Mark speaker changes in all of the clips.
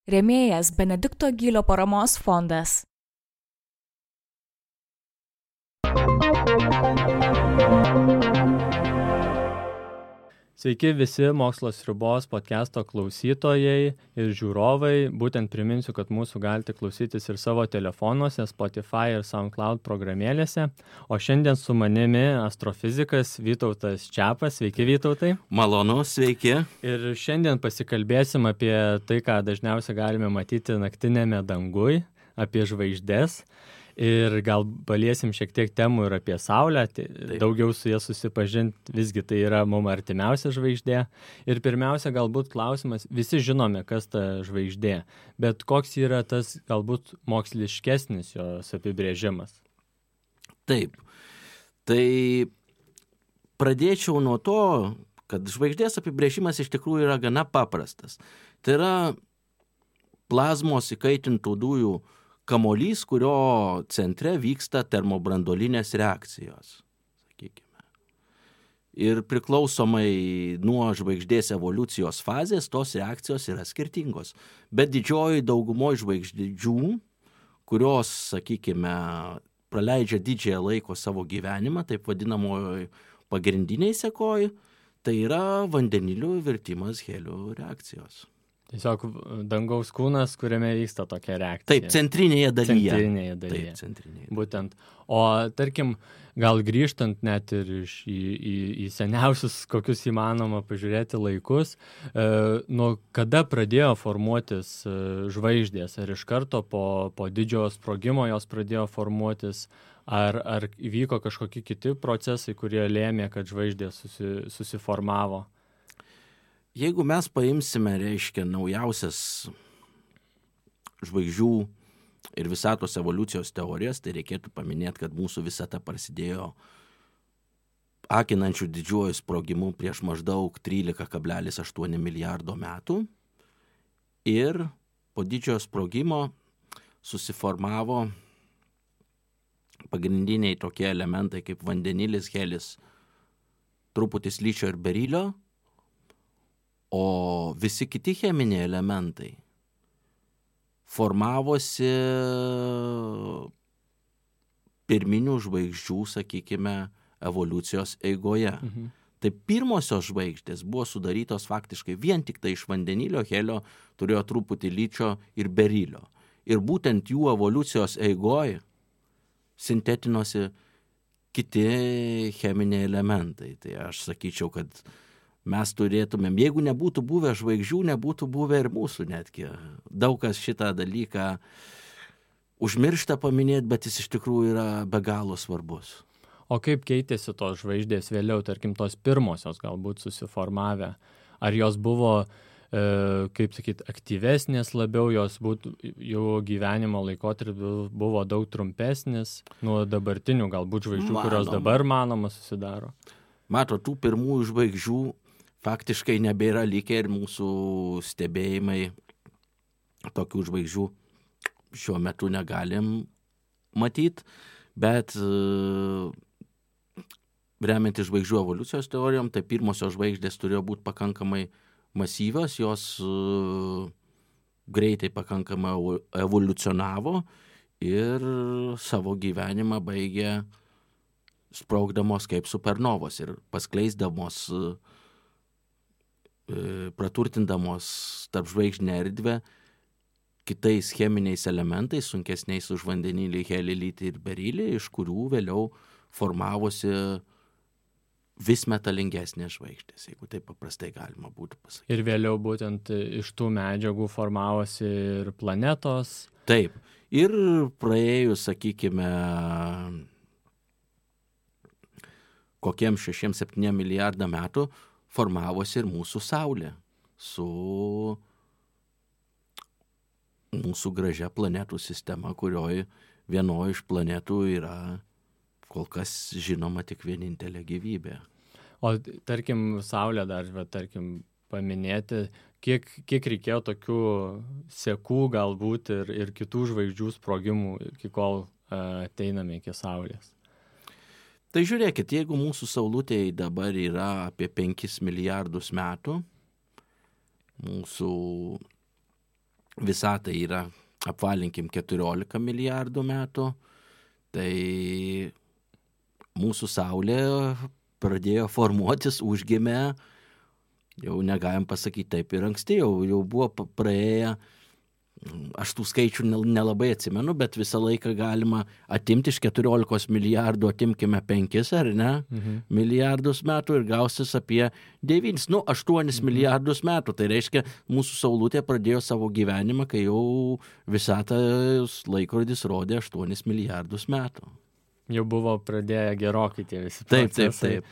Speaker 1: Rėmėjas Benedikto Gylio paramos fondas.
Speaker 2: Sveiki visi Mokslo sriubos podcast'o klausytojai ir žiūrovai. Būtent priminsiu, kad mūsų galite klausytis ir savo telefonuose, Spotify ir SoundCloud programėlėse. O šiandien su manimi astrofizikas Vytautas Čiapas. Sveiki, Vytautai.
Speaker 3: Malonu, sveiki.
Speaker 2: Ir šiandien pasikalbėsim apie tai, ką dažniausiai galime matyti naktinėme dangui, apie žvaigždes. Ir gal paliesim šiek tiek temų ir apie Saulę, daugiau su jie susipažinti, visgi tai yra mums artimiausia žvaigždė. Ir pirmiausia, galbūt klausimas, visi žinome, kas ta žvaigždė, bet koks yra tas galbūt moksliškesnis jos apibrėžimas?
Speaker 3: Taip, tai pradėčiau nuo to, kad žvaigždės apibrėžimas iš tikrųjų yra gana paprastas. Tai yra plazmos įkaitintų dujų kamuolys, kurio centre vyksta termobranduolinės reakcijos, sakykime. Ir priklausomai nuo žvaigždės evoliucijos fazės, tos reakcijos yra skirtingos. Bet didžioji daugumoje žvaigždžių, kurios, sakykime, praleidžia didžiąją laiko savo gyvenimą, taip vadinamoji pagrindiniai sekoji, tai yra vandenilių virtimas helio reakcijos.
Speaker 2: Tiesiog dangaus kūnas, kuriame vyksta tokia reakcija.
Speaker 3: Taip, centrinėje dalyje.
Speaker 2: Taip, centrinėje. Būtent. O tarkim, gal grįžtant net ir į seniausius, kokius įmanoma pažiūrėti laikus, nuo kada pradėjo formuotis žvaigždės? Ar iš karto po didžiojo sprogimo jos pradėjo formuotis? Ar įvyko kažkokie kiti procesai, kurie lėmė, kad žvaigždės susiformavo?
Speaker 3: Jeigu mes paimsime, naujausias žvaigždžių ir visatos evoliucijos teorijas, tai reikėtų paminėti, kad mūsų visata prasidėjo akinančių didžiuoju sprogimu prieš maždaug 13,8 milijardo metų. Ir po didžiojo sprogimo susiformavo pagrindiniai tokie elementai kaip vandenilis, helis, truputis ličio ir berilio. O visi kiti cheminiai elementai formavosi pirminių žvaigždžių, sakykime, evoliucijos eigoje. Tai pirmosios žvaigždės buvo sudarytos faktiškai vien tik tai iš vandenilio, helio, turėjo truputį ličio ir berilio. Ir būtent jų evoliucijos eigoje sintetinosi kiti cheminiai elementai. Tai aš sakyčiau, kad mes turėtumėm, jeigu nebūtų buvę žvaigždžių, nebūtų buvę ir mūsų netgi. Daug kas šitą dalyką užmiršta paminėti, bet jis iš tikrųjų yra be galo svarbus.
Speaker 2: O kaip keitėsi tos žvaigždės vėliau, tarkim, tos pirmosios galbūt susiformavę? Ar jos buvo, kaip sakyt, aktyvesnės labiau, jų gyvenimo laikotarpis buvo daug trumpesnis nuo dabartinių galbūt žvaigždžių, kurios dabar manoma susidaro?
Speaker 3: Mato, tų pirmųjų žvaigždžių faktiškai nebėra likę ir mūsų stebėjimai tokių žvaigždžių šiuo metu negalim matyti, bet remiantis žvaigždžių evoliucijos teorijom, tai pirmosios žvaigždės turėjo būti pakankamai masyvios, jos greitai pakankamai evoliucionavo ir savo gyvenimą baigė sprogdamos kaip supernovos ir paskleisdamos, praturtindamos tarp žvaigždinę erdvę kitais cheminiais elementais, sunkesniais už vandenilį, helį, litį ir berilį, iš kurių vėliau formavosi vis metalingesnės žvaigždės, jeigu taip paprastai galima būtų pasakyti.
Speaker 2: Ir vėliau būtent iš tų medžiagų formavosi ir planetos.
Speaker 3: Taip. Ir praėjus, sakykime, kokiem 6-7 milijardą metų formavosi ir mūsų Saulė su mūsų gražia planetų sistema, kurioje vienoje iš planetų yra kol kas žinoma tik vienintelė gyvybė.
Speaker 2: O tarkim, Saulė dar, paminėti, kiek reikėjo tokių sekų galbūt ir kitų žvaigždžių sprogimų, iki kol ateiname iki Saulės?
Speaker 3: Tai žiūrėkit, jeigu mūsų Saulutėje dabar yra apie 5 milijardus metų, mūsų visata yra, apvalinkim, 14 milijardų metų, tai mūsų Saulė pradėjo formuotis, užgimė, jau negalim pasakyti taip ir anksti, jau buvo praėję, aš tų skaičių nelabai atsimenu, bet visą laiką galima atimti iš 14 milijardų, atimkime 5, ar ne, milijardus metų ir gausis apie 9, 8 milijardus metų. Tai reiškia, mūsų Saulutė pradėjo savo gyvenimą, kai jau visatos laikrodis rodė 8 milijardus metų.
Speaker 2: Jau buvo pradėję gerokai tie visi procesai.
Speaker 3: Taip.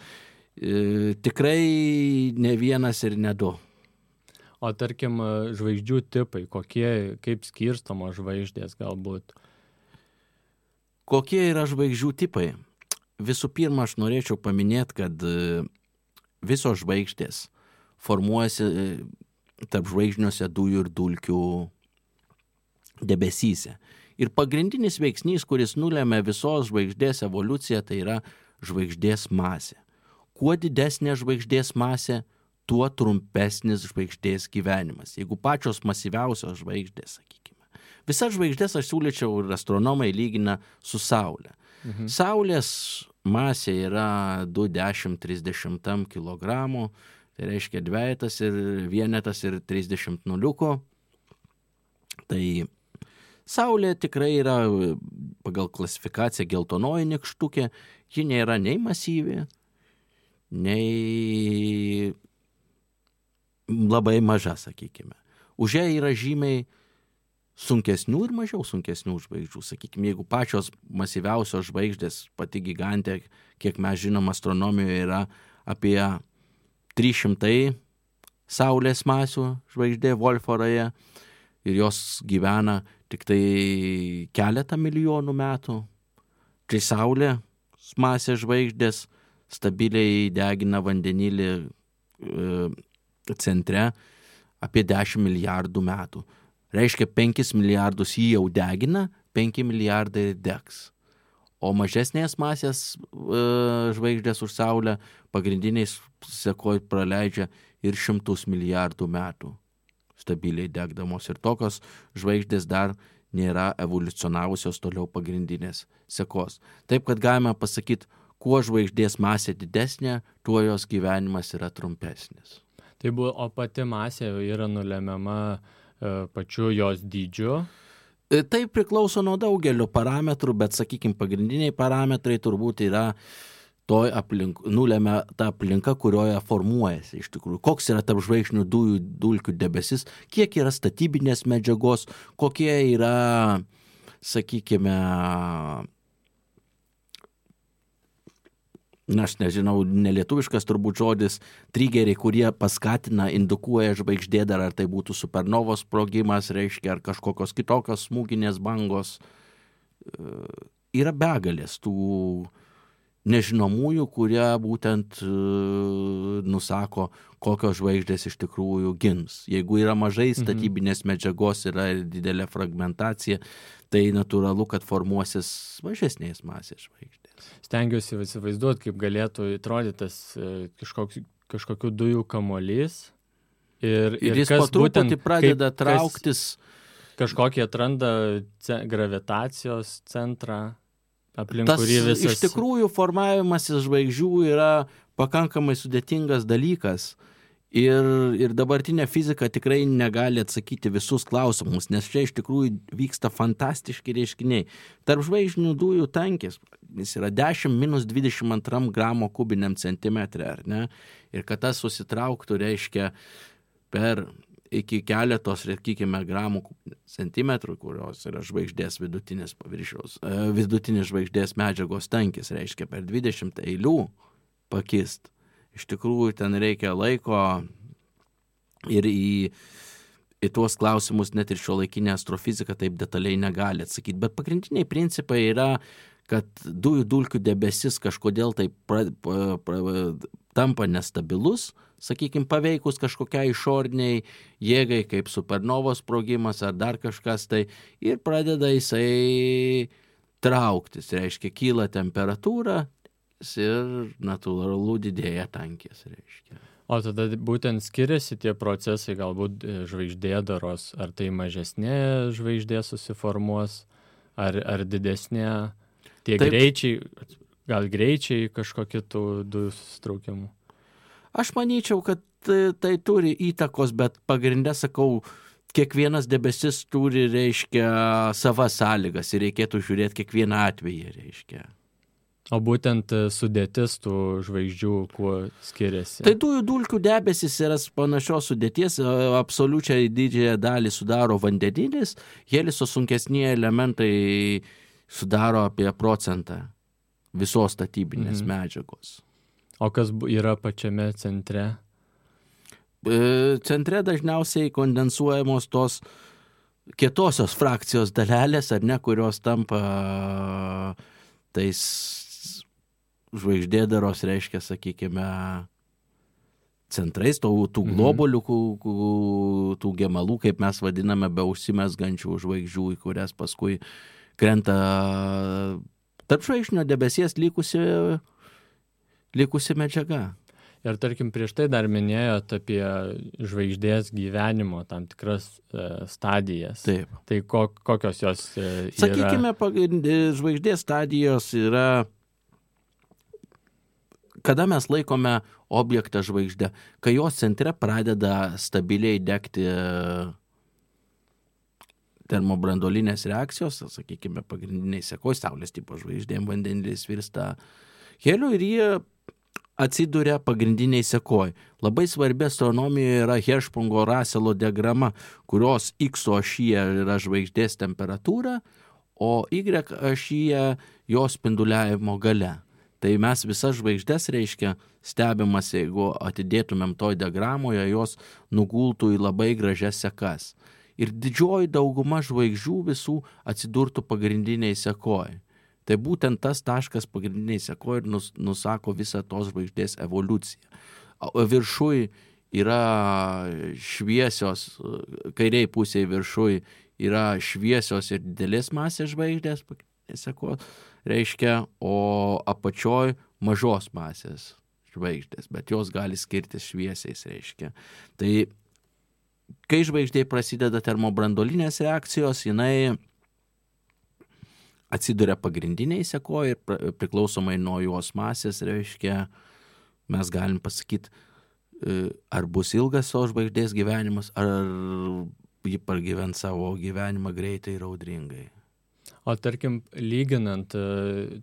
Speaker 3: Tikrai ne vienas ir ne 2.
Speaker 2: O tarkim, žvaigždžių tipai, kaip skirstamos žvaigždės galbūt?
Speaker 3: Kokie yra žvaigždžių tipai? Visų pirma, aš norėčiau paminėti, kad visos žvaigždės formuojasi tarp žvaigždiniuose dujų ir dulkių debesyse. Ir pagrindinis veiksnys, kuris nulėmė visos žvaigždės evoliuciją, tai yra žvaigždės masė. Kuo didesnė žvaigždės masė, tuo trumpesnis žvaigždės gyvenimas. Jeigu pačios masyviausios žvaigždės, sakykime. Visas žvaigždės aš siūlyčiau ir astronomai lygina su Saulė. Saulės masė yra 2,10–30 kilogramų, tai reiškia dvejetas ir vienetas ir 30 nuliukų. Tai Saulė tikrai yra pagal klasifikaciją geltonoji nykštukė, ji nėra nei masyvi, nei labai maža, sakykime. Už ją yra žymiai sunkesnių ir mažiau sunkesnių žvaigždžių. Sakykime, jeigu pačios masyviausios žvaigždės, pati gigantė, kiek mes žinom, astronomijoje yra apie 300 Saulės masių žvaigždė Wolf-Rayet ir jos gyvena tik tai keletą milijonų metų. Kai Saulė masės žvaigždės stabiliai degina vandenilį centre apie 10 milijardų metų. Reiškia, 5 milijardus jį jau degina, 5 milijardai degs. O mažesnės masės žvaigždės už Saulę pagrindiniais sekoj praleidžia ir 100 milijardų metų stabiliai degdamos. Ir tokios žvaigždės dar nėra evoliucionavusios toliau pagrindinės sekos. Taip, kad galime pasakyti, kuo žvaigždės masė didesnė, tuo jos gyvenimas yra trumpesnis.
Speaker 2: O pati masė yra nulemiama pačiu jos dydžiu?
Speaker 3: Tai priklauso nuo daugelio parametrų, bet, sakykime, pagrindiniai parametrai turbūt yra nulemia ta aplinka, kurioje formuojasi iš tikrųjų. Koks yra tarp žvaigždinių dulkių debesis, kiek yra statybinės medžiagos, kokie yra, sakykime, aš nežinau, nelietuviškas turbūt žodis, trigeriai, kurie paskatina, indukuoja žvaigždėdarą, ar tai būtų supernovos sprogimas, reiškia, ar kažkokios kitokios smūginės bangos. Yra begalės tų nežinomųjų, kurie būtent nusako, kokios žvaigždės iš tikrųjų gims. Jeigu yra mažai statybinės medžiagos, yra didelė fragmentacija, tai natūralu, kad formuosis mažesnės masės žvaigždės.
Speaker 2: Stengiuosi įsivaizduoti, kaip galėtų atrodyti tas kažkokių dujų kamuolys. Ir
Speaker 3: jis po truputį pradeda trauktis.
Speaker 2: Kažkokį atranda gravitacijos centrą, aplink kurį visas.
Speaker 3: Iš tikrųjų formavimasis žvaigždžių yra pakankamai sudėtingas dalykas. Ir dabartinė fizika tikrai negali atsakyti visus klausimus, nes čia iš tikrųjų vyksta fantastiški reiškiniai. Tarp žvaigždinių dujų tankis, jis yra 10-22 gramo kubiniam centimetre, ar ne? Ir kad tas susitrauktų, reiškia per iki keletos, sakykime, gramų centimetrų, kurios yra žvaigždės vidutinės paviršiaus, vidutinis žvaigždės medžiagos tankis, reiškia per 20 eilių pakist. Iš tikrųjų, ten reikia laiko ir į tuos klausimus net ir šiuolaikinė astrofizika taip detaliai negali atsakyti. Bet pagrindiniai principai yra, kad dujų dulkių debesis kažkodėl tai tampa nestabilus, sakykime, paveikus kažkokiai išoriniai jėgai, kaip supernovos sprogimas ar dar kažkas tai, ir pradeda jisai trauktis, reiškia, kyla temperatūra, ir natūralu didėja tankis, reiškia.
Speaker 2: O tada būtent skiriasi tie procesai, galbūt žvaigždėdaros, ar tai mažesnė žvaigždė susiformuos, ar didesnė, tie
Speaker 3: Taip.
Speaker 2: greičiai, gal greičiai kažkokie tų dujų susitraukimų.
Speaker 3: Aš manyčiau, kad tai turi įtakos, bet pagrindę sakau, kiekvienas debesis turi, reiškia, savas sąlygas ir reikėtų žiūrėti kiekvieną atvejį, reiškia.
Speaker 2: O būtent sudėtis tų žvaigždžių, kuo skiriasi?
Speaker 3: Tai dujų dulkių debesis yra panašios sudėties, absoliučiai didžiąją dalį sudaro vandenilis, heliso sunkesni elementai sudaro apie 1% visos statybinės medžiagos.
Speaker 2: O kas yra pačiame centre?
Speaker 3: Centre dažniausiai kondensuojamos tos kietosios frakcijos dalelės, ar ne, kurios tampa tais žvaigždėdaros, reiškia, sakykime, centrais, tų globolių, tų gemalų, kaip mes vadiname, be užsimesgančių žvaigždžių, į kurias paskui krenta tarp žvaigždinio debesies likusi medžiaga.
Speaker 2: Ir tarkim, prieš tai dar minėjot apie žvaigždės gyvenimo tam tikras stadijas.
Speaker 3: Taip.
Speaker 2: Tai kokios jos yra?
Speaker 3: Sakykime, žvaigždės stadijos yra, kada mes laikome objektą žvaigždę, kai jos centre pradeda stabiliai degti termobranduolinės reakcijos, sakykime, pagrindiniai sekoj, saulės tipo žvaigždėm vandenilis virsta heliu ir jie atsiduria pagrindiniai sekoj. Labai svarbi astronomijoje yra Hershpungo-Russelo diagrama, kurios X ašyje yra žvaigždės temperatūra, o Y ašyje jos spinduliavimo gale. Tai mes visas žvaigždės, reiškia, stebimas, jeigu atidėtumėm toj diagramoje, jos nugultų į labai gražias sekas. Ir didžioji dauguma žvaigždžių visų atsidurtų pagrindiniai sekoj. Tai būtent tas taškas pagrindiniai sekoj ir nusako visą tos žvaigždės evoliuciją. Viršui yra šviesios, kairiai pusėje viršui yra šviesios ir didelės masės žvaigždės, sekoj, reiškia, o apačioj mažos masės žvaigždės, bet jos gali skirtis šviesiais, reiškia. Tai kai žvaigždė prasideda termobranduolinės reakcijos, jinai atsiduria pagrindiniai sekoj ir priklausomai nuo jos masės, reiškia, mes galim pasakyti, ar bus ilgas savo žvaigždės gyvenimas, ar ji pragyvens savo gyvenimą greitai ir audringai.
Speaker 2: O tarkim, lyginant,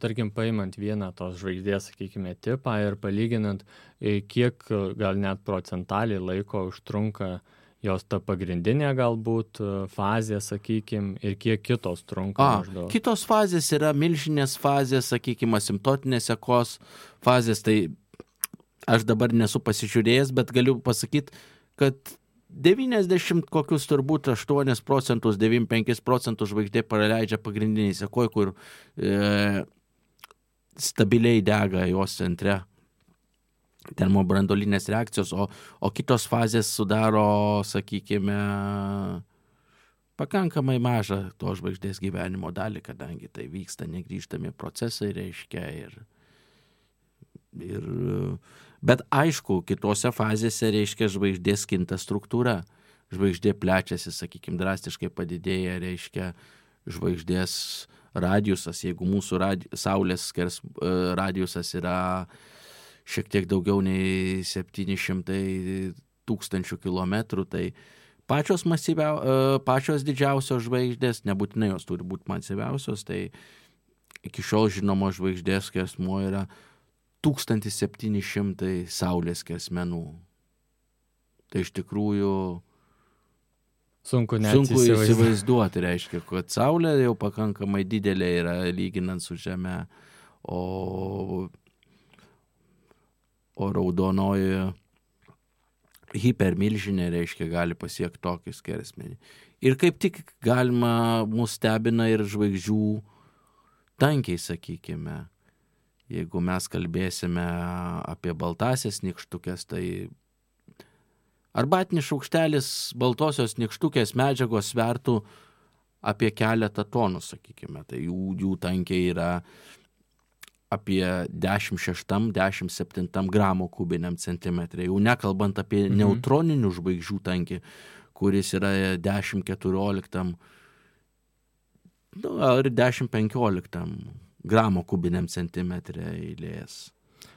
Speaker 2: tarkim, paimant vieną tos žvaigždės, sakykime, tipą ir palyginant, kiek gal net procentaliai laiko užtrunka jos ta pagrindinė galbūt fazė, sakykime, ir kiek kitos trunka maždaug.
Speaker 3: Kitos fazės yra milžinės fazės, sakykime, asimptotinės sekos fazės, tai aš dabar nesu pasižiūrėjęs, bet galiu pasakyti, kad 90 kokius turbūt 8%, 95% žvaigždė praleidžia pagrindiniai sekoj, kur stabiliai dega jos centre termobranduolinės reakcijos, o kitos fazės sudaro, sakykime, pakankamai mažą to žvaigždės gyvenimo dalį, kadangi tai vyksta negrįžtami procesai, reiškia, bet aišku, kitose fazėse, reiškia, žvaigždės kinta struktūra. Žvaigždė plečiasi, sakykime, drastiškai padidėja, reiškia, žvaigždės radiusas, jeigu mūsų Saulės radiusas yra šiek tiek daugiau nei 700 tūkstančių kilometrų, tai pačios didžiausios žvaigždės, nebūtinai jos turi būti masyviausios, tai iki šiol žinomo žvaigždės skersmuo yra 1700 Saulės skersmenų. Tai iš tikrųjų
Speaker 2: sunku
Speaker 3: įsivaizduoti, reiškia, kad Saulė jau pakankamai didelė yra lyginant su Žeme, o raudonoji hipermilžinė, reiškia, gali pasiekti tokį skersmenį. Ir kaip tik galima mus stebina ir žvaigždžių tankiai, sakykime. Jeigu mes kalbėsime apie baltasias nykštukės, tai arbatinis šaukštelis baltosios nykštukės medžiagos svertų apie 1 tonų, sakykime. Tai jų tankiai yra apie 10,6-10,7 gramo kubiniam centimetrė. Jau nekalbant apie neutroninių žvaigždžių tankį, kuris yra 10,14 ar 10,15 gramo kubiniam centimetrė eilės.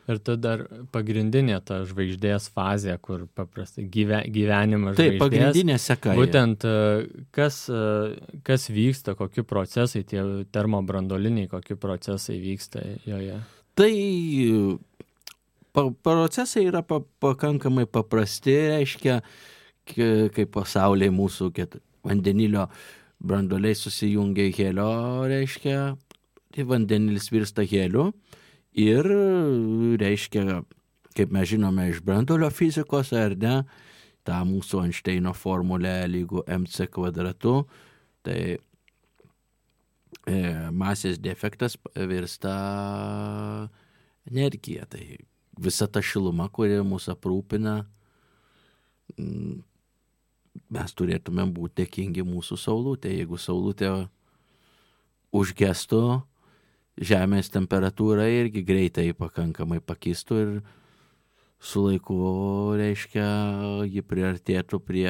Speaker 2: Ir tada dar pagrindinė ta žvaigždės fazė, kur paprastai gyvenimas žvaigždės.
Speaker 3: Taip, pagrindinė seka.
Speaker 2: Būtent kas vyksta, kokie procesai, tie termobrandoliniai, kokie procesai vyksta joje.
Speaker 3: Tai procesai yra pakankamai paprasti, reiškia, kaip pasaulyje mūsų vandenilio brandoliai susijungia helio, reiškia, tai vandenilis virsta heliu. Ir reiškia, kaip mes žinome iš brandolio fizikos, ar ne, tą mūsų Einšteino formulę lygu mc kvadratu, tai masės defektas virsta energija. Tai visa ta šiluma, kuri mūsų aprūpina, mes turėtume būti dėkingi mūsų saulutė. Jeigu saulutė užgestų, Žemės temperatūra irgi greitai pakankamai pakistų ir su laiku, reiškia, ji priartėtų prie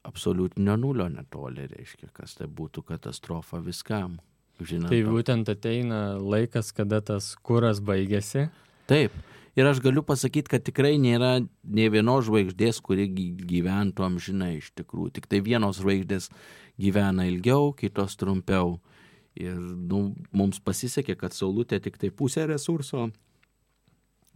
Speaker 3: absoliutinio nulio netoli, reiškia, kas tai būtų katastrofa viskam. Žinant,
Speaker 2: tai būtent ateina laikas, kada tas kuras baigėsi.
Speaker 3: Taip. Ir aš galiu pasakyti, kad tikrai nėra nei vienos žvaigždės, kuri gyventų amžinai iš tikrųjų. Tik tai vienos žvaigždės gyvena ilgiau, kitos trumpiau. Ir mums pasisekė, kad saulutė tik tai pusę resurso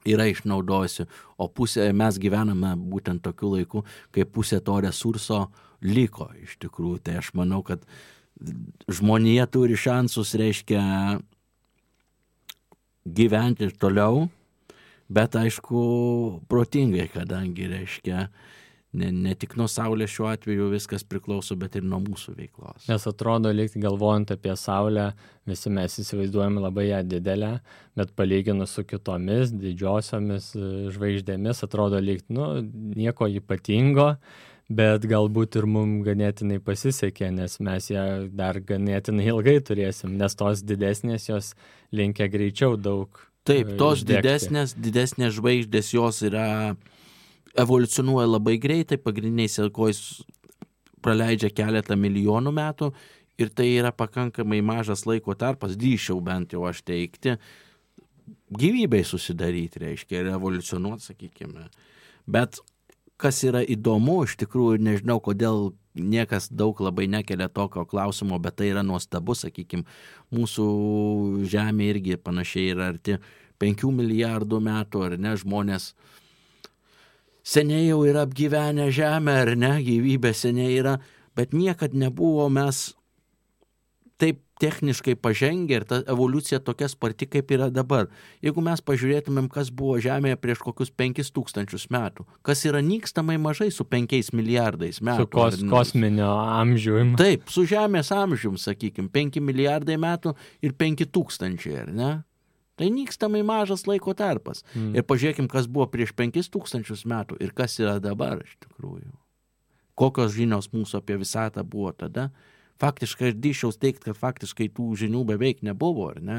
Speaker 3: yra išnaudojusi, o mes gyvename būtent tokiu laiku, kai pusė to resurso liko iš tikrųjų. Tai aš manau, kad žmonija turi šansus, reiškia, gyventi toliau, bet aišku protingai, kadangi, reiškia, ne tik nuo Saulės šiuo atveju viskas priklauso, bet ir nuo mūsų veiklos.
Speaker 2: Nes atrodo, lyg galvojant apie Saulę, visi mes įsivaizduojame labai ją didelę, bet palyginus su kitomis didžiosiomis žvaigždėmis, atrodo, lyg nieko ypatingo, bet galbūt ir mums ganėtinai pasisekė, nes mes ją dar ganėtinai ilgai turėsim, nes tos didesnės jos linkia greičiau daug.
Speaker 3: Taip, tos didesnės žvaigždės jos evoliucionuoja labai greitai, pagrindiniais sekojais praleidžia keletą milijonų metų ir tai yra pakankamai mažas laiko tarpas, drįsčiau bent jau aš teikti, gyvybei susidaryti, reiškia, ir evoliucionuoti, sakykime. Bet kas yra įdomu, iš tikrųjų, nežinau, kodėl niekas daug labai nekelia tokio klausimo, bet tai yra nuostabu, sakykime, mūsų Žemė irgi panašiai yra arti 5 milijardų metų, ar ne, žmonės seniai jau yra apgyvenę Žemę, ar ne, gyvybė seniai yra, bet niekad nebuvo mes taip techniškai pažengę ir ta evoliucija tokia sparti, kaip yra dabar. Jeigu mes pažiūrėtumėm, kas buvo Žemėje prieš kokius 5000 metų, kas yra nykstamai mažai su 5 milijardais metų.
Speaker 2: Su kosminio amžiumi.
Speaker 3: Taip, su Žemės amžiumi, sakykime, 5 milijardai metų ir 5000, ar ne? Tai nykstamai mažas laiko tarpas. Ir pažiūrėkim, kas buvo prieš 5000 metų ir kas yra dabar iš tikrųjų. Kokios žinios mūsų apie visatą buvo tada. Faktiškai aš drįsčiau teigti, kad faktiškai tų žinių beveik nebuvo, ar ne?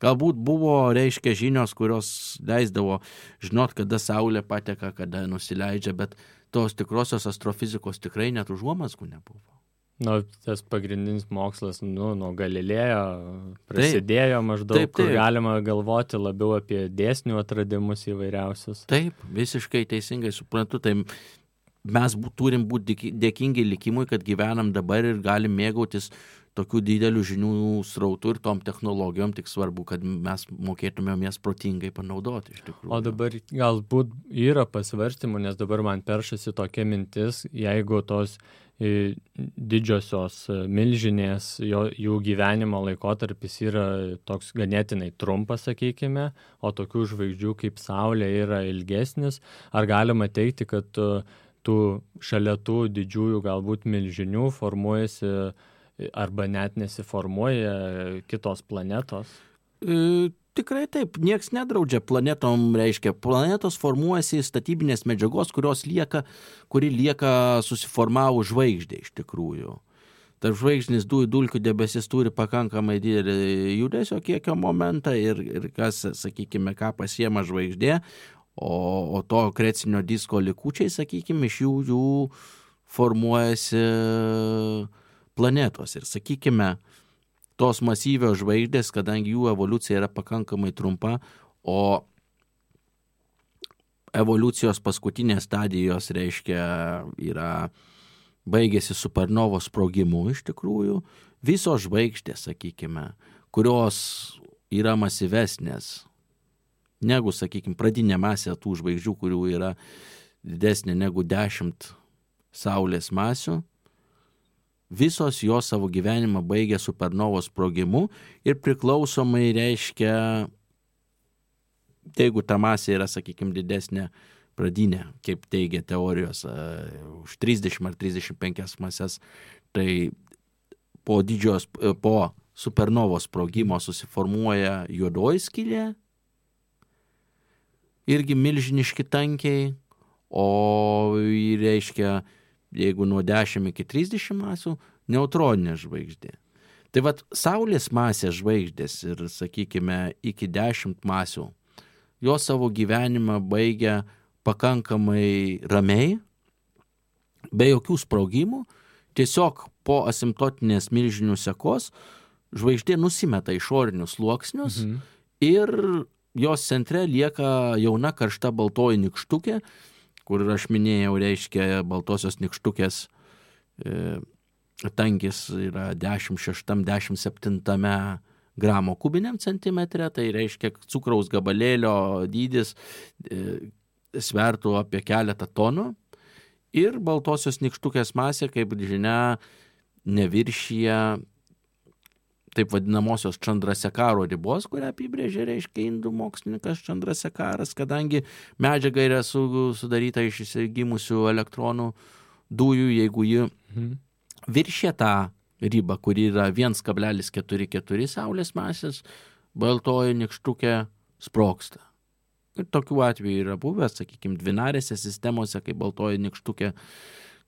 Speaker 3: Galbūt buvo, reiškia, žinios, kurios leisdavo žinot, kada Saulė pateka, kada nusileidžia, bet tos tikrosios astrofizikos tikrai net užuomazgų nebuvo.
Speaker 2: Tas pagrindinis mokslas, nuo Galilėjo prasidėjo maždaug, kur galima galvoti labiau apie dėsnių atradimus įvairiausius.
Speaker 3: Taip, visiškai teisingai suprantu, tai mes turim būti dėkingi likimui, kad gyvenam dabar ir galim mėgautis tokių didelių žinių srautų ir tom technologijom, tik svarbu, kad mes mokėtumėm jas protingai panaudoti iš tikrųjų.
Speaker 2: O dabar galbūt yra pasvarstymų, nes dabar man peršasi tokia mintis, jeigu tos didžiosios milžinės, jų gyvenimo laikotarpis yra toks ganėtinai trumpas, sakykime, o tokių žvaigždžių kaip Saulė yra ilgesnis, ar galima teikti, kad šalia tų didžiųjų galbūt milžinių formuojasi arba net nesiformuoja kitos planetos?
Speaker 3: Tikrai taip, nieks nedraudžia planetom, reiškia, planetos formuojasi statybinės medžiagos, kuri lieka susiformavus žvaigždė iš tikrųjų. tarp žvaigždinis dujų dulkių debesis turi pakankamai didelį judesio kiekio momentą ir kas, sakykime, ką pasiema žvaigždė, o to akrecinio disko likučiai, sakykime, iš jų formuojasi planetos. Ir, sakykime, tos masyvios žvaigždės, kadangi jų evoliucija yra pakankamai trumpa, o evoliucijos paskutinės stadijos, reiškia, baigėsi supernovos sprogimu iš tikrųjų, visos žvaigždės, sakykime, kurios yra masyvesnės negu, sakykime, pradinė masė tų žvaigždžių, kurių yra didesnė negu 10 Saulės masių, visos jos savo gyvenimą baigė supernovos sprogimu ir priklausomai, reiškia, jeigu ta masė yra, sakykime, didesnė pradinė, kaip teigia teorijos, už 30 ar 35 masės, tai po supernovos sprogimo susiformuoja juodoji skylė, irgi milžiniški tankiai, o reiškia, jeigu nuo 10 iki 30 masių, neutroninė žvaigždė. Tai vat Saulės masės žvaigždės ir, sakykime, iki 10 masių, jos savo gyvenimą baigia pakankamai ramiai, be jokių sprogimų, tiesiog po asimptotinės milžinių sekos žvaigždė nusimeta išorinius sluoksnius ir jos centre lieka jauna karšta baltoji nykštukė, kur aš minėjau, reiškia, baltosios nykštukės tankis yra 16-17 gramo kubiniam centimetre, tai reiškia cukraus gabalėlio dydis svertų apie keletą tonų ir baltosios nykštukės masė, kaip žinia, neviršyje taip vadinamosios Chandrasekharo ribos, kurią apibrėžė, reiškia, indų mokslininkas Chandrasekharas, kadangi medžiaga yra sudaryta iš išsigimusių elektronų dujų, jeigu ji viršė tą ribą, kuri yra 1,44 Saulės masės, baltoji nykštukė sprogsta. Ir tokių atvejų yra buvęs, sakykime, dvinarėse sistemose, kai baltoji nykštukė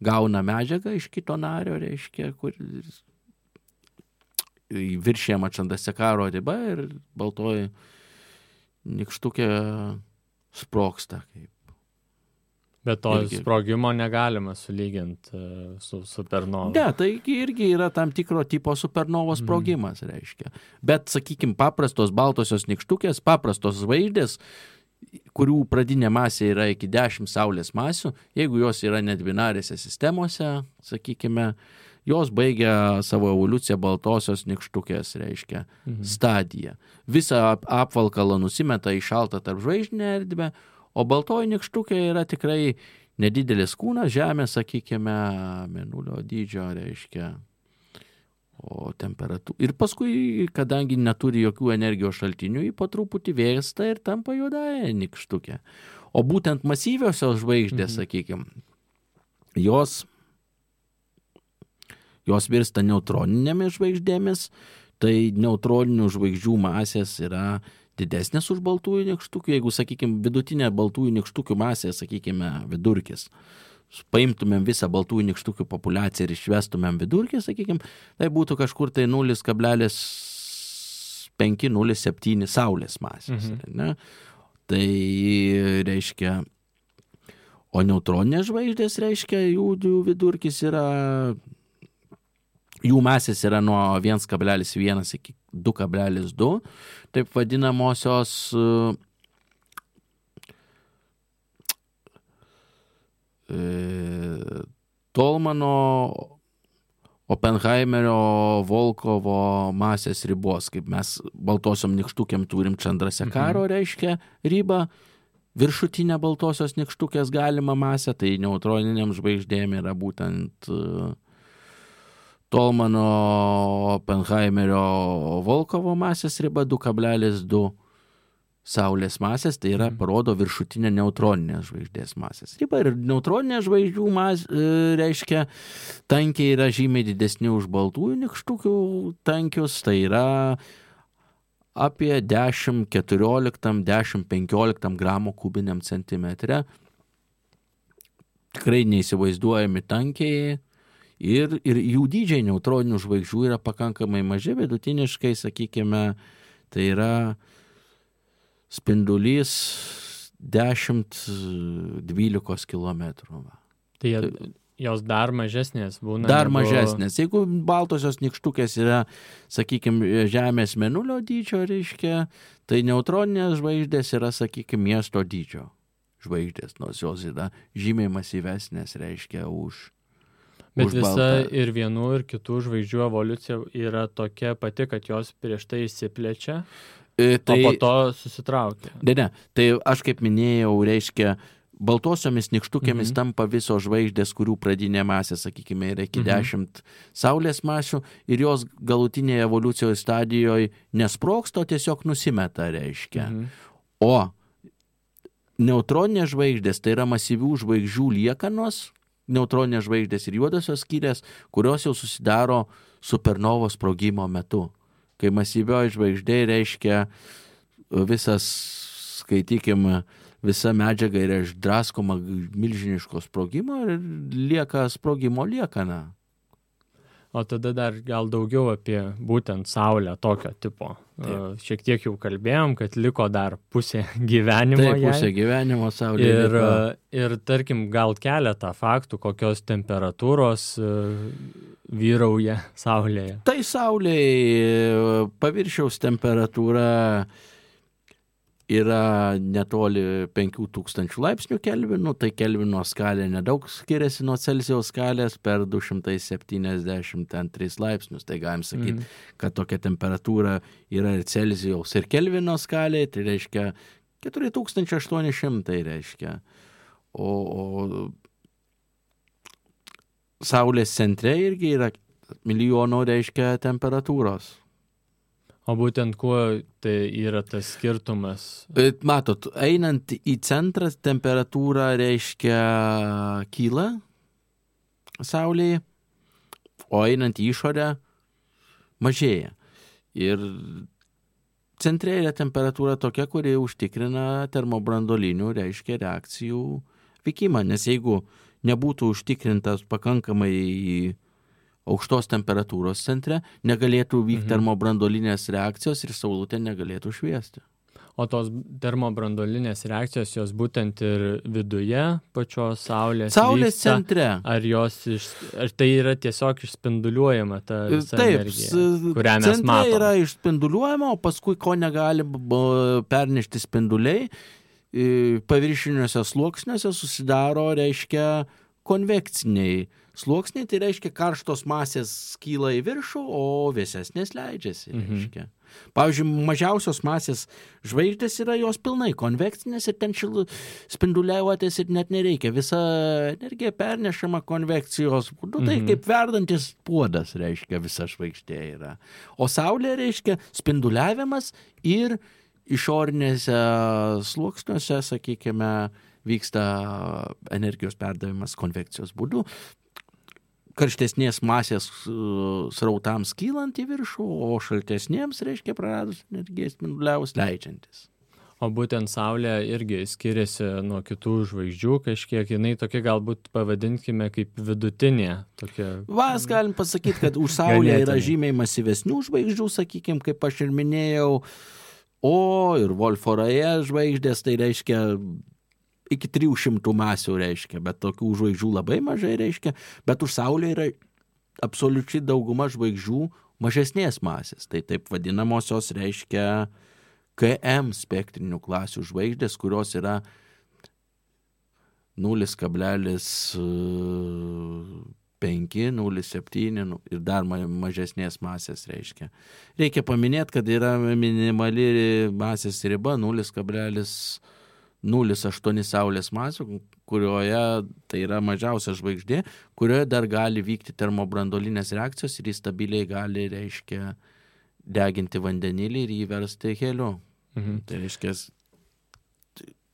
Speaker 3: gauna medžiagą iš kito nario, reiškia, kur viršėjama Chandrasekharo riba ir baltoji nykštukė sprogsta.
Speaker 2: Bet to sprogimo negalima sulyginti su supernova.
Speaker 3: Ne, tai irgi yra tam tikro tipo supernovos sprogimas, reiškia. Bet, sakykime, paprastos baltosios nykštukės, paprastos žvaigždės, kurių pradinė masė yra iki 10 Saulės masių, jeigu jos yra nedvinarėse sistemose, sakykime, jos baigia savo evoliuciją baltosios nykštukės, reiškia, stadiją. Visą apvalkalą nusimeta į šaltą tarp žvaigždinę erdvę, o baltoji nykštukė yra tikrai nedidelis kūnas, Žemė, sakykime, mėnulio dydžio, reiškia, o temperatūra. Ir paskui, kadangi neturi jokių energijos šaltinių, ji po truputį vėsta ir tampa juodąja nykštukė. O būtent masyviosios žvaigždės, sakykime, jos virsta neutroninėmis žvaigždėmis, tai neutroninių žvaigždžių masės yra didesnės už baltųjų nykštukių. Jeigu, sakykime, vidutinė baltųjų nykštukių masė, sakykime, vidurkis, paimtumėm visą baltųjų nykštukių populiaciją ir išvestumėm vidurkį, sakykime, tai būtų kažkur tai 0,5-0,7 Saulės masės. Ne? Tai reiškia, o neutroninės žvaigždės, reiškia, jų vidurkis yra, jų masės yra nuo 1,1 iki 2,2, taip vadinamosios Tolmano, Oppenheimerio, Volkovo masės ribos, kaip mes baltosiom nykštukėm turim Chandrasekharo, reiškia, ribą, viršutinė baltosios nykštukės galima masė, tai neutroniniam žvaigždėm yra būtent Tolmano, Oppenheimerio, Volkovo masės riba 2,2 Saulės masės, tai yra parodo viršutinę neutroninės žvaigždės masės ribą. Ir neutroninė žvaigždžių reiškia, tankiai yra žymiai didesni už baltųjų nykštukių tankius, tai yra apie 10-14-10-15 gramų kubiniam centimetre. Tikrai neįsivaizduojami tankiai. Ir jų dydžiai neutroninių žvaigždžių yra pakankamai maži, vidutiniškai, sakykime, tai yra spindulys 10-12 kilometrų.
Speaker 2: Tai jos dar mažesnės būna?
Speaker 3: Dar mažesnės. Jeigu baltosios nykštukės yra, sakykime, Žemės mėnulio dydžio, reiškia, tai neutroninės žvaigždės yra, sakykime, miesto dydžio žvaigždės, nors jos yra žymiai masyvesnės, reiškia, už
Speaker 2: Bet visa
Speaker 3: baltą.
Speaker 2: ir vienų, ir kitų žvaigždžių evoliucija yra tokia pati, kad jos prieš tai išsiplečia, o po to susitraukia.
Speaker 3: Ne, tai aš kaip minėjau, reiškia, baltosiomis nykštukėmis tampa visos žvaigždės, kurių pradinė masė, sakykime, yra iki 10 Saulės masių ir jos galutinėje evoliucijos stadijoje nesprogsta, tiesiog nusimeta, reiškia. O neutroninės žvaigždės, tai yra masyvių žvaigždžių liekanos, neutroninės žvaigždės ir juodosios skylės, kurios jau susidaro supernovos sprogimo metu. Kai masyvioji žvaigždė reiškia visas, skaitykime, visa medžiaga yra išdraskoma milžiniško sprogimo ir lieka sprogimo liekana.
Speaker 2: O tada dar gal daugiau apie būtent Saulę tokio tipo. Šiek tiek jau kalbėjom, kad liko dar pusė gyvenimo.
Speaker 3: Taip, pusė gyvenimo Saulė.
Speaker 2: Ir tarkim, gal keletą faktų, kokios temperatūros vyrauja Saulėje.
Speaker 3: Tai Saulėje paviršiaus temperatūra yra netoli 5000 laipsnių kelvinų, tai kelvino skalė nedaug skiriasi nuo Celsijaus skalės per 273 laipsnius. Tai galim sakyti, kad tokia temperatūra yra ir Celsijaus ir kelvino skalė, tai reiškia 4800 reiškia. O Saulės centre irgi yra milijono reiškia temperatūros.
Speaker 2: O būtent kuo tai yra tas skirtumas?
Speaker 3: Matot, einant į centrą temperatūra reiškia kyla Saulėje, o einant į išorę mažėja. Ir centre yra temperatūra tokia, kuri užtikrina termobrandolinių, reiškia, reakcijų vykimą, nes jeigu nebūtų užtikrintas pakankamai aukštos temperatūros centre, negalėtų vykti termobrandolinės reakcijos ir saulutė negalėtų šviesti.
Speaker 2: O tos termobrandolinės reakcijos, jos būtent ir viduje pačios Saulės vyksta,
Speaker 3: centre.
Speaker 2: Ar tai yra tiesiog išspinduliuojama ta visa energija, kurią mes
Speaker 3: centre
Speaker 2: matome?
Speaker 3: Yra išspinduliuojama, o paskui, ko negali pernešti spinduliai, paviršiniuose sluoksniuose susidaro, reiškia, konvekciniai sluoksniai, tai reiškia karštos masės kyla į viršų, o vėsesnės leidžiasi, reiškia. Pavyzdžiui, mažiausios masės žvaigždės yra jos pilnai konvekcinės ir ten spinduliuotis ir net nereikia. Visa energija pernešama konvekcijos būdu, tai kaip verdantis puodas, reiškia, visa žvaigždė yra. O Saulė reiškia spinduliavimas ir išorinėse sluoksniuose, sakykime, vyksta energijos perdavimas konvekcijos būdu. Karštesnės masės srautams kylant į viršų, o šaltesnėms, reiškia, praradus energiją spinduliavus leidžiantis.
Speaker 2: O būtent Saulė irgi skiriasi nuo kitų žvaigždžių kažkiek, jinai tokia galbūt pavadinkime kaip vidutinė.
Speaker 3: Vas galim pasakyti, kad už Saulę yra žymiai masyvesnių žvaigždžių, sakykime, kaip aš ir minėjau, O ir Wolfo Raje žvaigždės, tai reiškia iki 300 masių reiškia, bet tokių žvaigždžių labai mažai reiškia, bet už Saulę yra absoliučiai dauguma žvaigždžių mažesnės masės, tai taip vadinamosios reiškia KM spektrinių klasių žvaigždės, kurios yra 0,5, 0,7 ir dar mažesnės masės reiškia. Reikia paminėti, kad yra minimali masės riba 0,08 Saulės masių, kurioje tai yra mažiausia žvaigždė, kurioje dar gali vykti termobrandolinės reakcijos ir jis stabiliai gali, reiškia, deginti vandenilį ir jį versti heliu. Tai reiškia,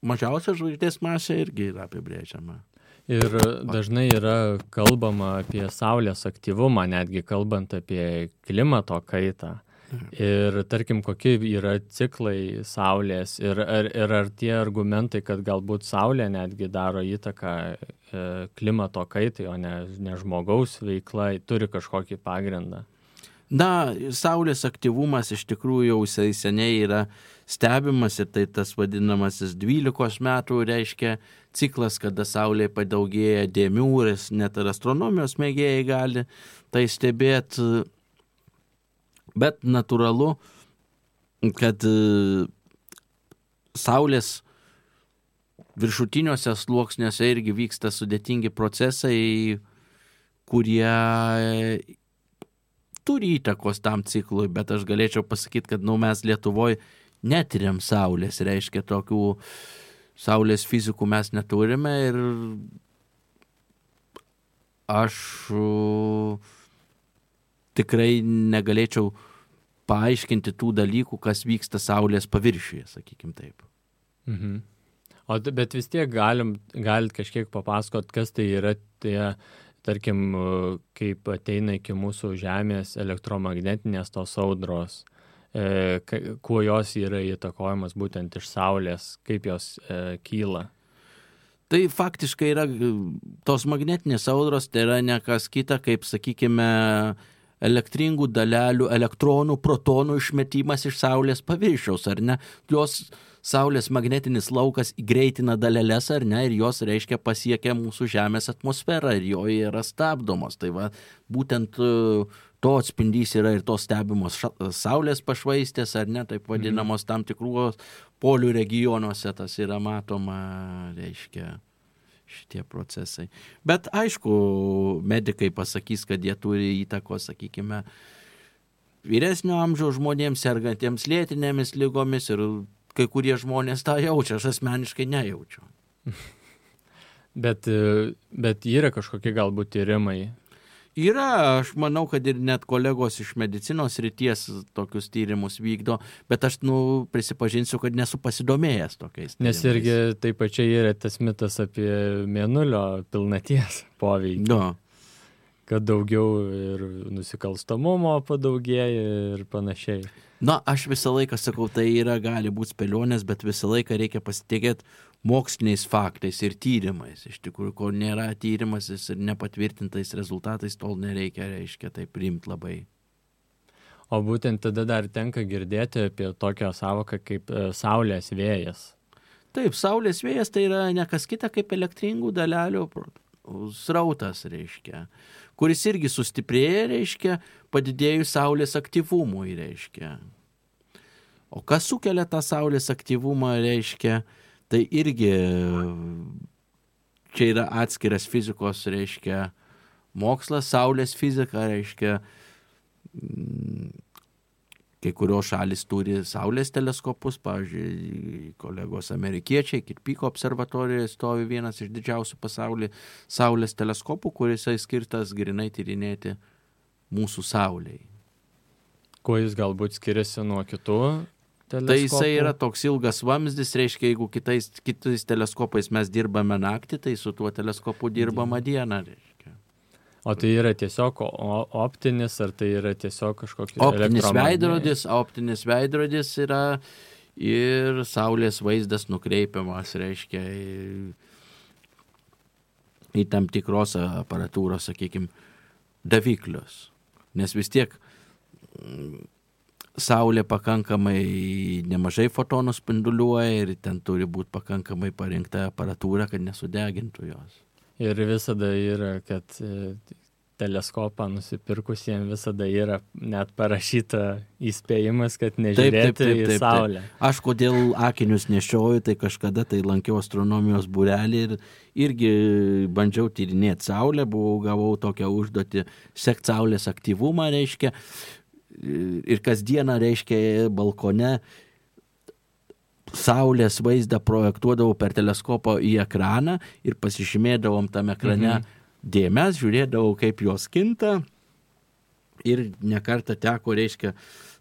Speaker 3: mažiausia žvaigždės masė irgi yra apibrėžiama.
Speaker 2: Ir dažnai yra kalbama apie Saulės aktyvumą, netgi kalbant apie klimato kaitą. Ir tarkim, kokie yra ciklai Saulės ir ar tie argumentai, kad galbūt Saulė netgi daro įtaką klimato kaitai, o ne žmogaus veikla, turi kažkokį pagrindą?
Speaker 3: Na, Saulės aktyvumas iš tikrųjų jau seniai yra stebimas ir tai tas vadinamasis 12 metų reiškia ciklas, kada Saulė padaugėja dėmių ir net ir astronomijos mėgėjai gali tai stebėti. Bet natūralu, kad Saulės viršutiniuose sluoksniuose irgi vyksta sudėtingi procesai, kurie turi įtakos tam ciklui, bet aš galėčiau pasakyti, kad mes Lietuvoje netiriam Saulės, reiškia tokių Saulės fizikų mes neturime ir aš tikrai negalėčiau paaiškinti tų dalykų, kas vyksta Saulės paviršiuje, sakykim taip.
Speaker 2: Mhm. Bet vis tiek galit kažkiek papasakot, kas tai yra tie, tarkim, kaip ateina iki mūsų Žemės elektromagnetinės tos audros, kuo jos yra įtakojamas būtent iš Saulės, kaip jos kyla.
Speaker 3: Tai faktiškai yra tos magnetinės audros, tai yra ne kas kita, kaip, sakykime, elektringų dalelių, elektronų, protonų išmetimas iš Saulės paviršiaus, ar ne? Jos Saulės magnetinis laukas greitina daleles, ar ne, ir jos, reiškia, pasiekia mūsų Žemės atmosferą ir joje yra stabdomos. Tai va, būtent to atspindys yra ir tos stebimos Saulės pašvaistės, ar ne, taip vadinamos tam tikrų polių regionuose, tas yra matoma, reiškia, šitie procesai. Bet aišku, medikai pasakys, kad jie turi įtakos, sakykime, vyresnio amžiaus žmonėms sergantiems lėtinėmis ligomis ir kai kurie žmonės tą jaučia, aš asmeniškai nejaučiu.
Speaker 2: Bet yra kažkokie galbūt tyrimai?
Speaker 3: Yra, aš manau, kad ir net kolegos iš medicinos srities tokius tyrimus vykdo, bet aš, prisipažinsiu, kad nesu pasidomėjęs tokiais tyrimais.
Speaker 2: Nes irgi taip pačiai yra tas mitas apie mėnulio pilnaties poveikį.
Speaker 3: No.
Speaker 2: Kad daugiau ir nusikalstamumo padaugėja ir panašiai.
Speaker 3: Na, aš visą laiką sakau, tai gali būti spėlionės, bet visą laiką reikia pasitikėti moksliniais faktais ir tyrimais. Iš tikrųjų, kol nėra tyrimas ir nepatvirtintais rezultatais, tol nereikia, reiškia, tai priimti labai.
Speaker 2: O būtent tada dar tenka girdėti apie tokią savoką kaip Saulės vėjas.
Speaker 3: Taip, Saulės vėjas tai yra ne kas kita kaip elektringų dalelių srautas, reiškia, kuris irgi sustiprėja, reiškia, padidėjus Saulės aktyvumui, reiškia. O kas sukelia tą Saulės aktyvumą, reiškia, tai irgi čia yra atskiras fizikos, reiškia, mokslas, Saulės fizika, reiškia, kai kurios šalis turi Saulės teleskopus, pavyzdžiui, kolegos amerikiečiai, Kirpyko observatorijoje stovi vienas iš didžiausių pasaulyje Saulės teleskopų, kuris skirtas grinai tyrinėti mūsų Saulei.
Speaker 2: Kuo jis galbūt skiriasi nuo kitų teleskopų?
Speaker 3: Tai jisai yra toks ilgas vamzdis, reiškia, jeigu kitais teleskopais mes dirbame naktį, tai su tuo teleskopu dirbama dieną, reiškia.
Speaker 2: O tai yra tiesiog optinis, ar tai yra tiesiog kažkokia
Speaker 3: Optinis veidrodis yra ir Saulės vaizdas nukreipiamas, reiškia, į tam tikros aparatūros, sakykime, daviklius. Nes vis tiek Saulė pakankamai nemažai fotonų spinduliuoja ir ten turi būti pakankamai parinkta aparatūra, kad nesudegintų jos.
Speaker 2: Ir visada yra, kad teleskopą nusipirkusiems visada yra net parašyta įspėjimas, kad nežiūrėti į Saulę.
Speaker 3: Taip. Aš kodėl akinius nešioju, tai kažkada tai lankiau astronomijos būrelį ir irgi bandžiau tyrinėti Saulę, gavau tokią užduotį sekti Saulės aktyvumą, reiškia, ir kasdieną, reiškia, balkone Saulės vaizdą projektuodavau per teleskopą į ekraną ir pasižymėdavom tam ekrane dėmes, žiūrėdavau, kaip jos kinta ir nekartą teko, reiškia,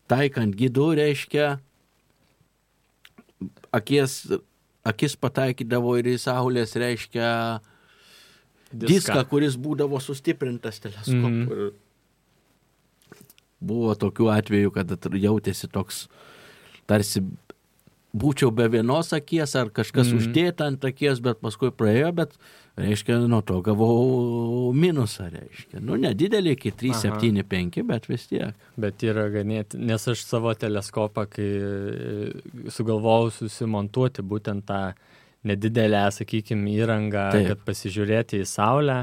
Speaker 3: taikant gidų, reiškia, akis pataikydavo ir į Saulės, reiškia, diską, kuris būdavo sustiprintas teleskopu. Buvo tokių atvejų, kad jautėsi toks, tarsi būčiau be vienos akies ar kažkas uždėta ant akies, bet paskui praėjo, bet, reiškia, nuo to gavau minusą, reiškia. Nu, nedidelį iki 3, 7, 5, bet vis tiek.
Speaker 2: Bet yra ganėti, nes aš savo teleskopą, kai sugalvojau susimontuoti būtent tą nedidelę, sakykime, įrangą, kad pasižiūrėti į Saulę,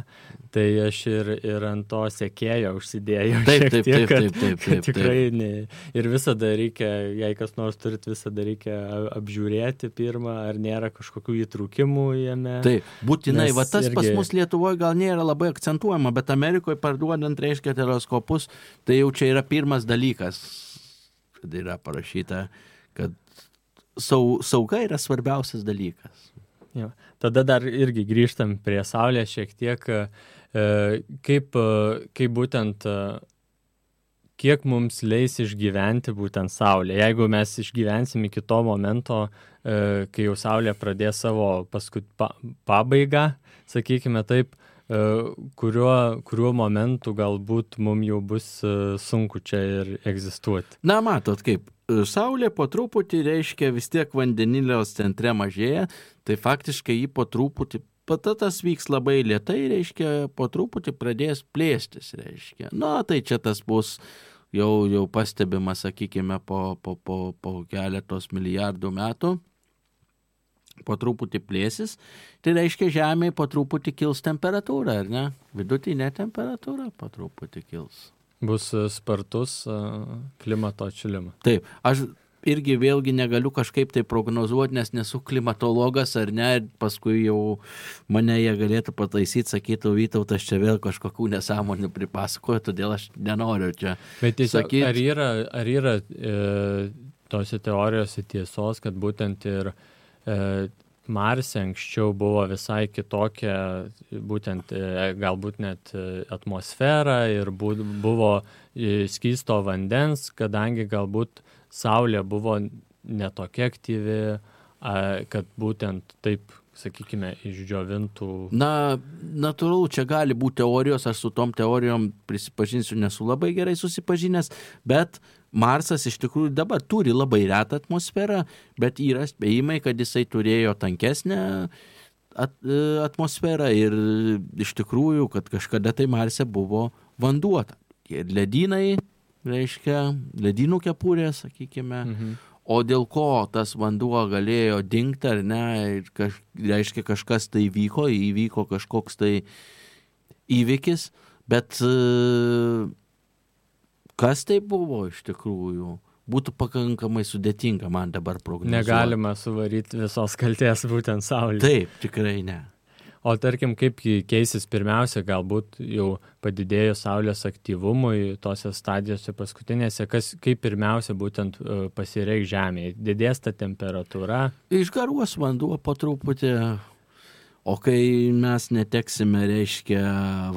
Speaker 2: tai aš ir ant to sekėjo užsidėjau šiek tiek, kad tikrai ne. Ir visada reikia, jei kas nors turit, visada reikia apžiūrėti pirmą, ar nėra kažkokių įtrūkimų jame.
Speaker 3: Taip, būtinai, va tas irgi... pas mus Lietuvoje gal nėra labai akcentuojama, bet Amerikoje parduodant, reiškia, teleskopus, tai jau čia yra pirmas dalykas, kad yra parašyta, kad sauga yra svarbiausias dalykas.
Speaker 2: Jo. Tada dar irgi grįžtam prie Saulės šiek tiek, kaip būtent, kiek mums leis išgyventi būtent Saulė. Jeigu mes išgyvensim iki to momento, kai jau Saulė pradės savo pabaigą, sakykime taip, kuriuo momentu galbūt mums jau bus sunku čia ir egzistuoti.
Speaker 3: Na, matot kaip. Saulė po truputį, reiškia, vis tiek vandeniliaus centre mažėja, tai faktiškai jį po truputį, tas vyks labai lėtai, reiškia, po truputį pradės plėstis, reiškia. Na, tai čia tas bus jau pastebima, sakykime, po keletos milijardų metų, po truputį plėsis, tai reiškia, Žemėje po truputį kils temperatūra, ar ne? Vidutinė temperatūra po truputį kils.
Speaker 2: Bus spartus klimato atšilimas.
Speaker 3: Taip, aš irgi vėlgi negaliu kažkaip tai prognozuoti, nes nesu klimatologas ar ne, paskui jau mane jie galėtų pataisyti, sakytų, Vytautas čia vėl kažkokių nesąmonių pripasakoja, todėl aš nenoriu čia
Speaker 2: sakyti. Ar yra tose teorijose tiesos, kad būtent ir Marse anksčiau buvo visai kitokia, būtent galbūt net atmosfera ir buvo skysto vandens, kadangi galbūt Saulė buvo netokia aktyvi, kad būtent taip, sakykime, išdžiovintų.
Speaker 3: Na, natūralu, čia gali būti teorijos, aš su tom teorijom prisipažinsiu, nesu labai gerai susipažinęs, bet Marsas iš tikrųjų dabar turi labai retą atmosferą, bet yra spėjimai, kad jisai turėjo tankesnę atmosferą ir iš tikrųjų, kad kažkada tai Marse buvo vanduo. Ir ledynai, reiškia, ledynų kepurė, sakykime, o dėl ko tas vanduo galėjo dingti ar ne, reiškia, kažkas tai įvyko kažkoks tai įvykis, bet kas tai buvo iš tikrųjų, būtų pakankamai sudėtinga man dabar prognozuoti.
Speaker 2: Negalima suvaryti visos kaltės būtent Saulė.
Speaker 3: Taip, tikrai ne.
Speaker 2: O tarkim, kaip keisis pirmiausia, galbūt jau padidėjus Saulės aktyvumui tose stadijose paskutinėse, kaip pirmiausia būtent pasireikš Žemėje? Didės ta temperatūra?
Speaker 3: Išgaruos vanduo po truputį, o kai mes neteksime, reiškia,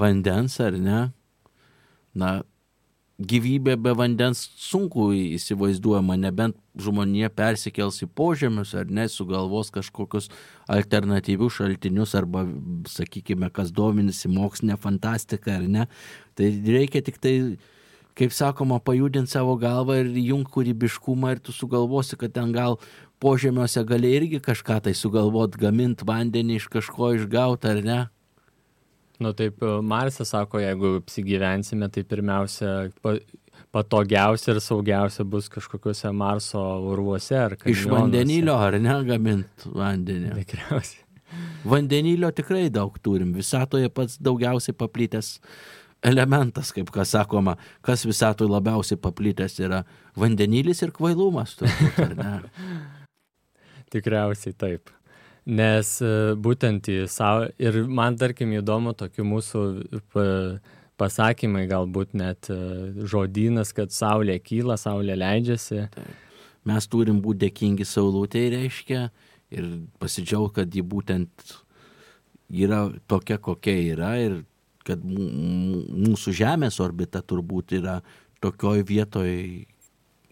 Speaker 3: vandens ar ne, na, gyvybė be vandens sunku įsivaizduojama, nebent žmonija persikels į požemius ar ne, sugalvos kažkokius alternatyvius šaltinius arba, sakykime, kas dominasi mokslinė fantastika ar ne. Tai reikia tik tai, kaip sakoma, pajudinti savo galvą ir jungti kūrybiškumą ir tu sugalvosi, kad ten gal požemiuose gali irgi kažką tai sugalvoti, gaminti vandenį iš kažko išgauti ar ne.
Speaker 2: Nu taip, Marse sako, jeigu apsigyvensime, tai pirmiausia patogiausia ir saugiausia bus kažkokiuose Marso urvuose ar kanjonuose.
Speaker 3: Iš vandenilio ar ne gamint vandenį?
Speaker 2: Tikriausiai.
Speaker 3: Vandenilio tikrai daug turim. Visatoje pats daugiausiai paplitęs elementas, kaip kas sakoma, kas visatoje labiausiai paplitęs yra vandenilis ir kvailumas, turbūt, ar ne?
Speaker 2: Tikriausiai taip. Nes būtent ir man tarkim įdomu tokių mūsų pasakymai, galbūt net žodynas, kad Saulė kyla, Saulė leidžiasi.
Speaker 3: Mes turim būti dėkingi saulutei, reiškia, ir pasidžiaugti, kad ji būtent yra tokia, kokia yra ir kad mūsų Žemės orbita turbūt yra tokioj vietoj,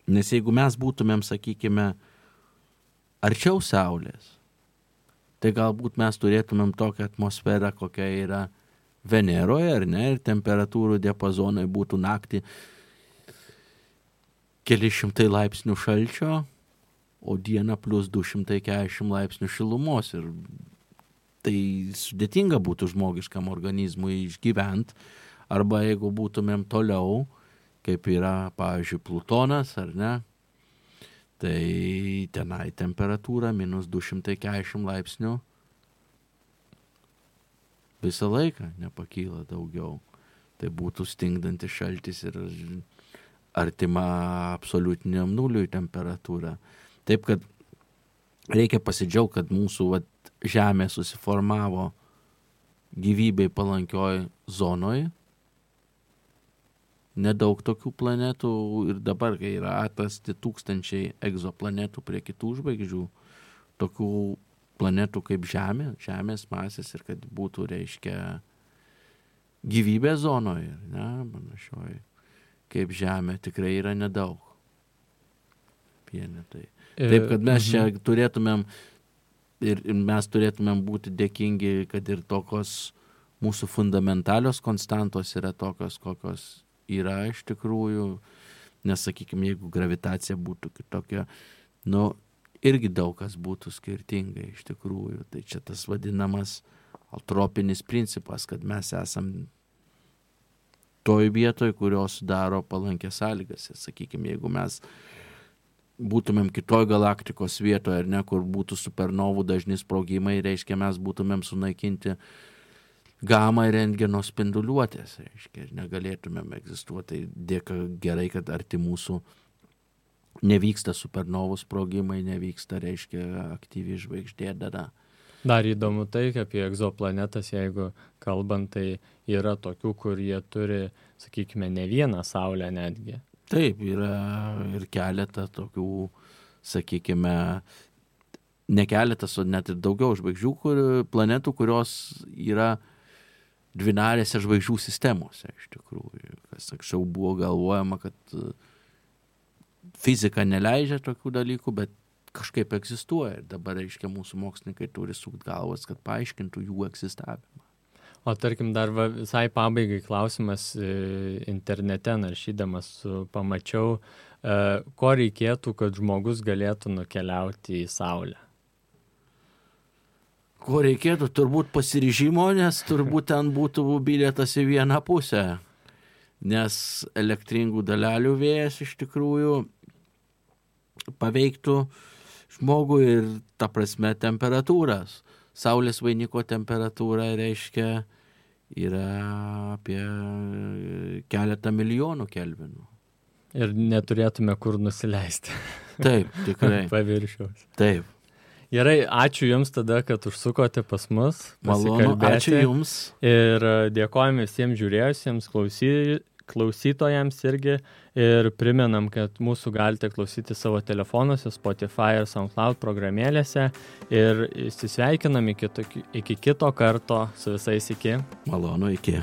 Speaker 3: nes jeigu mes būtumėm, sakykime, arčiau Saulės, tai galbūt mes turėtumėm tokią atmosferą, kokia yra Veneroje, ar ne, ir temperatūrų diapazonai būtų naktį keli šimtai laipsnių šalčio, o dieną plus 240 laipsnių šilumos. Ir tai sudėtinga būtų žmogiškam organizmui išgyventi, arba jeigu būtumėm toliau, kaip yra, pavyzdžiui, Plutonas, ar ne, tai tenai temperatūra minus 240 laipsnių visą laiką nepakyla daugiau. Tai būtų stingdantis šaltis ir artima absoliutiniam nuliui temperatūra. Taip, kad reikia pasidžiaugti, kad mūsų Žemė susiformavo gyvybei palankioj zonoj. Nedaug tokių planetų ir dabar, kai yra atrasti tūkstančiai egzoplanetų prie kitų žvaigždžių, tokių planetų kaip Žemė, Žemės masės ir kad būtų, reiškia, gyvybė zonoje, ne, panašioj, kaip Žemė, tikrai yra nedaug. Vienetai. Taip, kad mes čia turėtumėm ir mes turėtumėm būti dėkingi, kad ir tokios mūsų fundamentalios konstantos yra tokios, kokios yra iš tikrųjų, nes, sakykime, jeigu gravitacija būtų kitokia, irgi daug kas būtų skirtingai iš tikrųjų. Tai čia tas vadinamas altropinis principas, kad mes esam toj vietoj, kurios sudaro palankės sąlygas. Sakykime, jeigu mes būtumėm kitoj galaktikos vietoje, ar ne, kur būtų supernovų dažni sprogimai, reiškia, mes būtumėm sunaikinti gamą ir rentgeno spinduliuotės, reiškia, ir negalėtumėm egzistuoti. Dėka gerai, kad arti mūsų nevyksta supernovų sprogimai, nevyksta, reiškia, aktyvi žvaigždė dada.
Speaker 2: Dar įdomu tai, apie egzoplanetas, jeigu kalbant, tai yra tokių, kur jie turi, sakykime, ne vieną Saulę netgi.
Speaker 3: Taip, yra ir keletą tokių, sakykime, ne keletas, o net ir daugiau žvaigždžių, planetų, kurios yra dvinarėse žvaigždžių sistemose, iš tikrųjų. Kas anksčiau buvo galvojama, kad fizika neleidžia tokių dalykų, bet kažkaip egzistuoja. Ir dabar, reiškia, mūsų mokslininkai turi sukt galvas, kad paaiškintų jų egzistavimą.
Speaker 2: O tarkim, dar visai pabaigai klausimas internete naršydamas pamačiau, ko reikėtų, kad žmogus galėtų nukeliauti į Saulę?
Speaker 3: Ko reikėtų? Turbūt pasiryžimo, nes turbūt ten būtų bilietas į vieną pusę. Nes elektringų dalelių vėjas iš tikrųjų paveiktų žmogų ir, ta prasme, temperatūras. Saulės vainiko temperatūra, reiškia, yra apie keletą milijonų kelvinų.
Speaker 2: Ir neturėtume kur nusileisti.
Speaker 3: Taip, tikrai.
Speaker 2: Paviršiaus.
Speaker 3: Taip.
Speaker 2: Gerai, ačiū Jums tada, kad užsukote pas mus.
Speaker 3: Malonu, ačiū Jums.
Speaker 2: Ir dėkojame visiems žiūrėjusiems, klausytojams irgi. Ir primenam, kad mūsų galite klausyti savo telefonuose, Spotify ir SoundCloud programėlėse. Ir įsisveikinam iki kito karto su visais iki.
Speaker 3: Malonu, iki.